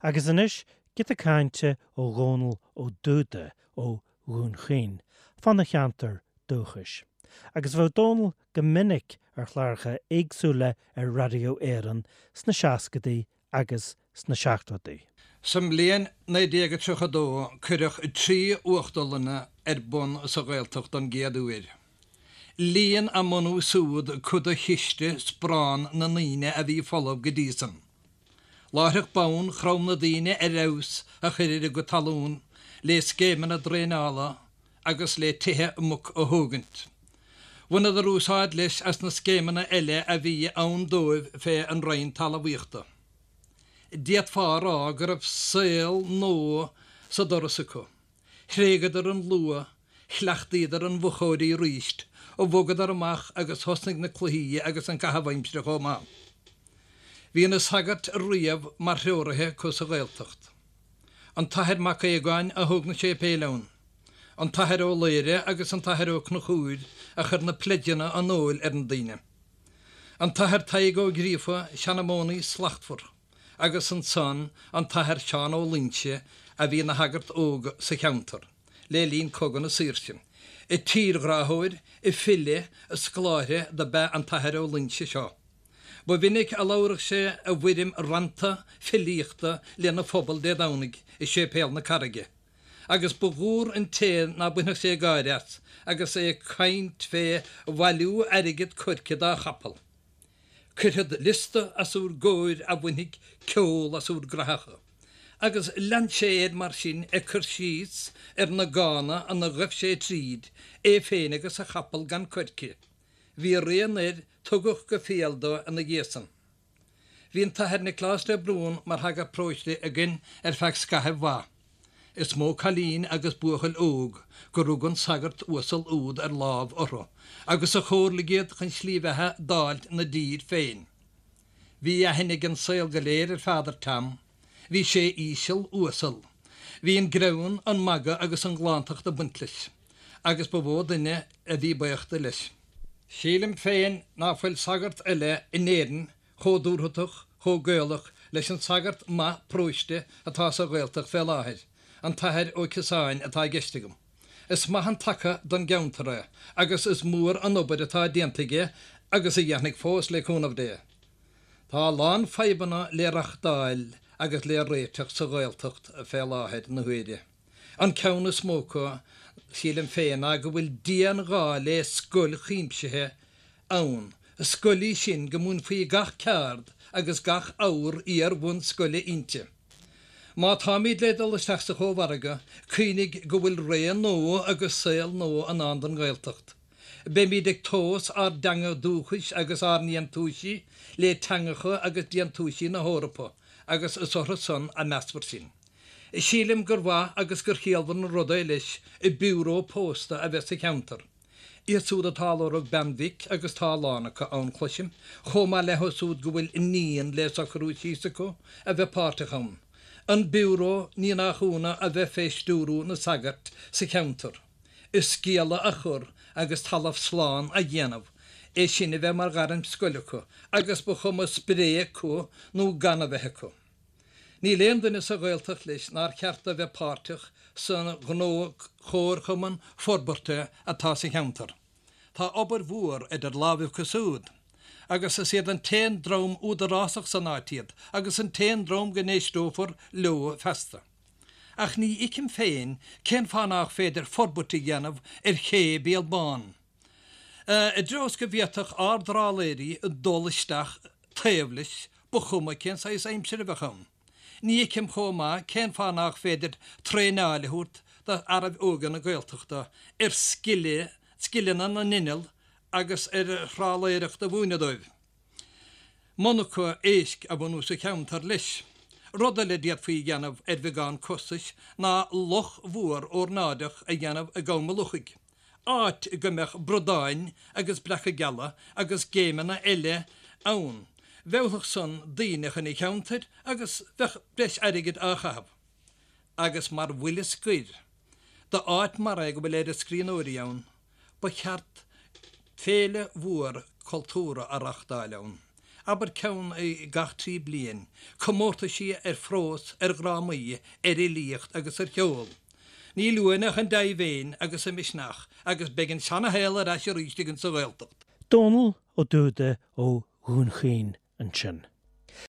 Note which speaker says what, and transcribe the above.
Speaker 1: Agus anois, giota cainte ó Dhónal Ó Dúda ó Dhún Chaoin, fána cheantar dúchais. Agus bheadh Dónal go minic ar chláracha éagsúla ar Raidió Éireann sna seascadaí agus sna seachtóidí.
Speaker 2: Sa mbliain 1932 cuireadh 3 uachtarlanna ar bun sa Ghaeltacht don gcéad uair. Líon a mbunú súd cuid de chiste sparán na ndaoine a bhí folamh go dtí san. Láithreach bonn chrom na daoine ar fheabhas a chur ar a gcuid talún lé scéimeanna draenála agus lé tithe muc a thógaint. Bhaineadar úsáid leis as na scéimeanna eile a bhí ann dóibh fé an Roinn Talmhaíochta. D'fhéadfá a rá go raibh saol nua sa doras acu. Thréigeadar an luaith, chleachtaíodar an mhochóirí aríst, bhogadar amach agus thosnaigh na cluichí agus an caitheamh aimsire chomh maith. Bhí na sagairt riamh mar threoraithe acu sa Ghaeltacht. An tAthair Mac Aogáin a thóg na séipéil ann. An tAthair Ó Laoire agus an tAthair Ó Conchúir a chuir na pleideanna an óil ar na daoine. An tAthair Tadhg Ó Gríofa, seanmónaí slachtmhar. agus ansan an tAthair Seán Ó Loingsigh a bhí ina shagart óg sa cheantar le linn Cogadh na Saoirse. Tírghráthóir, file, scoláire do b'ea an tAthair Ó Loingsigh seo. Ba mhinic a labhradh sé i bhfoirm rannta filíochta lena phobal Dé Domhnaigh i Séipéal na Carraige, agus ba mhór an té ná bainfeadh sé gáire as agus é ag caint fé bhailiú airgead coirce dá chapall. Cuirfead liosta as úr gcomhair a bhainfidh ceol as úr gcrathacha. Agus lean sé air mar sin ag cur síos ar na gána ina ghaibh sé tríd, é féin agus a chapall gan coirce. Bhí rian air tugadh go fial dó ina dhiaidh san. Bhí an tAthair Nioclás de Brún mar shagart paróiste againn ar feadh scaithimh mhaith. Is mó cailín agus buachaill óg gur rug an sagart uasal úd ar lámh orthu agus a chomhairligh iad chun slí bheatha d'fháilt 'na dtír féin. Bhí aithne ag an saol go léir ar Pheadar Tom. Bhí sé íseal, uasal. Bhí an greann, an magadh agus an ghlántacht ag baint leis, agus ba mhó duine a bhí baoch de leis. Sílim féin ná fuil sagart eile in Éirinn chomh dúthrachtach, chomh Gaelach leis an sagart maith paróiste atá sa Ghaeltacht fé láthair, an tAthair Ó Ciosáin atá i gceist agam. Is maith an taca don gceantar é agus is mór an obair atá déanta aige agus a dhéanfaidh fós le cúnamh Dé. Tá a lán fadhbanna le reachtáil agus le réiteach sa Ghaeltacht fé láthair na huaire. An ceann is mó acu, sílim féin, ná go bhfuil dian-ghá le scoil chuimsithe ann, scoil í sin go múinfí gach ceard agus gach abhar iar-bhunscoile inti. Má táimíd le dul isteach sa Chómhargadh, cuimhnigh go bhfuil ré nua agus saol nua i ndán don Ghaeltacht. Beimíd ag tomhas ár dteanga dúchais agus ár ndéantúisí le teangacha agus déantúisí na hEorpa agus is orthu san a measfar sinn. Sílim gur mhaith agus gur chiallmhar an rud é leis biúró pósta a bheith sa cheantar. Iad súd atá ag lorg bean mhic, agus tá a lán acu ann, cloisim, chomh maith leo súd go bhfuil iníon le socrú síos acu, a bheith páirteach ann. An biúró, ní nach ionadh, a bheith fé stiúrú na sagart sa cheantar. Sciála a chur agus talamh slán a dhéanamh, é sin a bheith mar ghairm scoile acu, agus ba chuma spré acu nó gan a bheith acu. Níl aon duine sa Ghaeltacht leis nár cheart do bheith páirteach sa ghnó chomharchumann forbartha atá sa cheantar. Tá obair mhór idir lámhaibh acu súd, agus is iad an t-aon dream údarásach san áit iad agus an t-aon dream go n-éisteofar leo feasta. Ach ní fheicim féin cén fáth nách féidir forbairt a dhéanamh ar ché Béal Bán. I dtreo is go bhféadfadh ár dtrálaeirí dul isteach taobh leis, ba chuma cén saghas aimsire a bheadh ann. Ní fheicim chomh maith cén fáth nách féidir traenáil a thabhairt do fhearaibh óga na Gaeltachta ar scileanna na n-inneall agus ar thrálaeireacht a mhúineadh dóibh. Monarcha éisc a bhunú sa cheantar leis. Rud eile a d'fhéadfaí a dhéanamh ar bheagán costais ná loch mhór órnáideach a dhéanamh i gCom a' Luchaigh, áit go mbeadh bradáin agus breaca geala agus géimeanna eile ann. Mheallfadh san daoine chun an cheantair agus bheadh breis airgid á chaitheamh. Agus mar bhuille scoir, d'áit mar é go bhfuil oiread scríbhneoirí ann, Ba cheart féile mhór cultúrtha a reachtáil ann. abair ceann gach 3 bliain, comórtaisí ar phrós, ar dhrámaí, ar fhilíocht agus ar cheol. Níl uainn ach an dea-mhéin agus an misneach agus beidh an seana-shaol ar ais arís againn sa Ghaeltacht.
Speaker 1: Dónall Ó Dúda ó Dhún Chaoin ansin.